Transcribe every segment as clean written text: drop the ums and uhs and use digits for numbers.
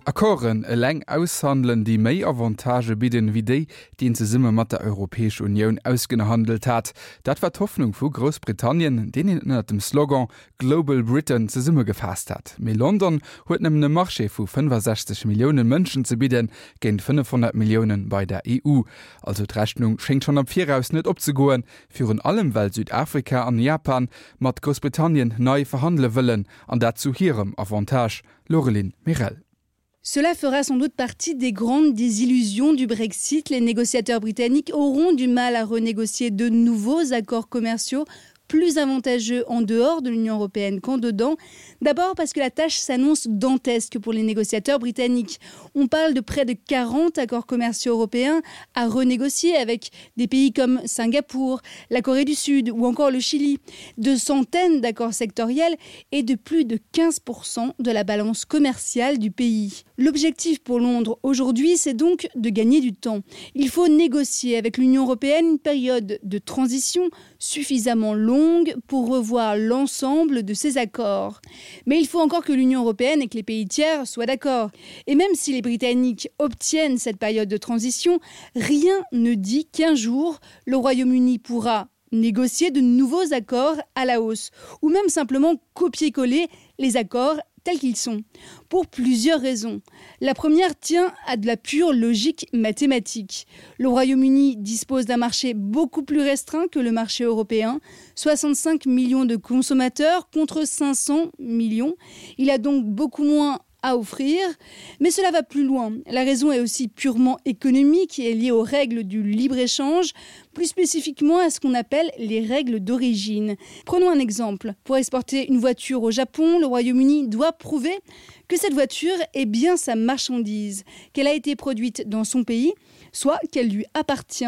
Accorden eleng aushandelen, déi méi Avantagë bidden, wéi déi, déi een zesumme mat der Europäesch Unioun ausgehandelt hat. Dat war d'Hoffnung vu Groussbritannien, deen een ënnert dem Slogan Global Britain zesummegefaasst hat. Mee London huet nëmmen e Marché vu 65 Millioune Mënschen ze bidden, géint 500 Millioune bei der EU. Also d'Rechnung schéngt schonn am Viraus net opzegoen, virun allem well Südafrika an Japan mat Groussbritannien nei verhandele wëllen, an dat zu hirem Avantage. Laureline Mirel. Cela fera sans doute partie des grandes désillusions du Brexit. Les négociateurs britanniques auront du mal à renégocier de nouveaux accords commerciaux plus avantageux en dehors de l'Union européenne qu'en dedans. D'abord parce que la tâche s'annonce dantesque pour les négociateurs britanniques. On parle de près de 40 accords commerciaux européens à renégocier avec des pays comme Singapour, la Corée du Sud ou encore le Chili, de centaines d'accords sectoriels et de plus de 15% de la balance commerciale du pays. L'objectif pour Londres aujourd'hui, c'est donc de gagner du temps. Il faut négocier avec l'Union européenne une période de transition suffisamment longue pour revoir l'ensemble de ces accords. Mais il faut encore que l'Union européenne et que les pays tiers soient d'accord. Et même si les Britanniques obtiennent cette période de transition, rien ne dit qu'un jour, le Royaume-Uni pourra négocier de nouveaux accords à la hausse ou même simplement copier-coller les accords tels qu'ils sont, pour plusieurs raisons. La première tient à de la pure logique mathématique. Le Royaume-Uni dispose d'un marché beaucoup plus restreint que le marché européen, 65 millions de consommateurs contre 500 millions. Il a donc beaucoup moins à offrir, mais cela va plus loin. La raison est aussi purement économique et est liée aux règles du libre-échange, plus spécifiquement à ce qu'on appelle les règles d'origine. Prenons un exemple. Pour exporter une voiture au Japon, le Royaume-Uni doit prouver que cette voiture est bien sa marchandise, qu'elle a été produite dans son pays, soit qu'elle lui appartient.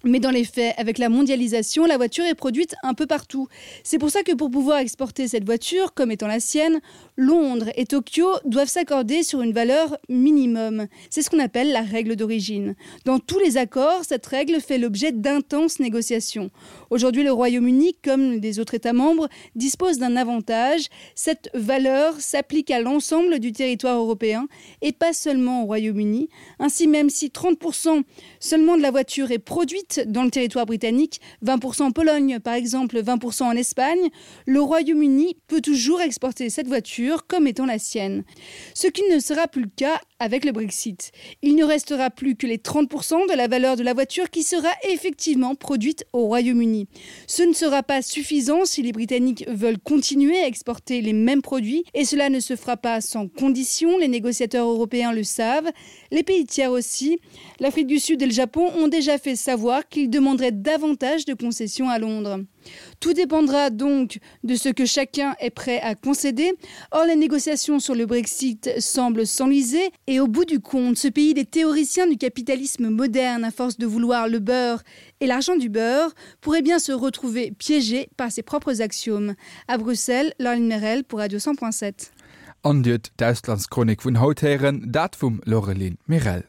Mais dans les faits, avec la mondialisation, la voiture est produite un peu partout. C'est pour ça que pour pouvoir exporter cette voiture comme étant la sienne, Londres et Tokyo doivent s'accorder sur une valeur minimum. C'est ce qu'on appelle la règle d'origine. Dans tous les accords, cette règle fait l'objet d'intenses négociations. Aujourd'hui, le Royaume-Uni, comme les autres États membres, dispose d'un avantage. Cette valeur s'applique à l'ensemble du territoire européen et pas seulement au Royaume-Uni. Ainsi, même si 30% seulement de la voiture est produite dans le territoire britannique, 20% en Pologne par exemple, 20% en Espagne, le Royaume-Uni peut toujours exporter cette voiture comme étant la sienne. Ce qui ne sera plus le cas avec le Brexit. Il ne restera plus que les 30% de la valeur de la voiture qui sera effectivement produite au Royaume-Uni. Ce ne sera pas suffisant si les Britanniques veulent continuer à exporter les mêmes produits et cela ne se fera pas sans condition, les négociateurs européens le savent, les pays tiers aussi. L'Afrique du Sud et le Japon ont déjà fait savoir qu'ils demanderaient davantage de concessions à Londres. Tout dépendra donc de ce que chacun est prêt à concéder. Or les négociations sur le Brexit semblent s'enliser et au bout du compte, ce pays des théoriciens du capitalisme moderne à force de vouloir le beurre et l'argent du beurre pourrait bien se retrouver piégé par ses propres axiomes. À Bruxelles, Laureline Merel pour Radio 100.7. An Dir huet d'Auslandschronik vun haut héieren, dat vum Laureline Merel.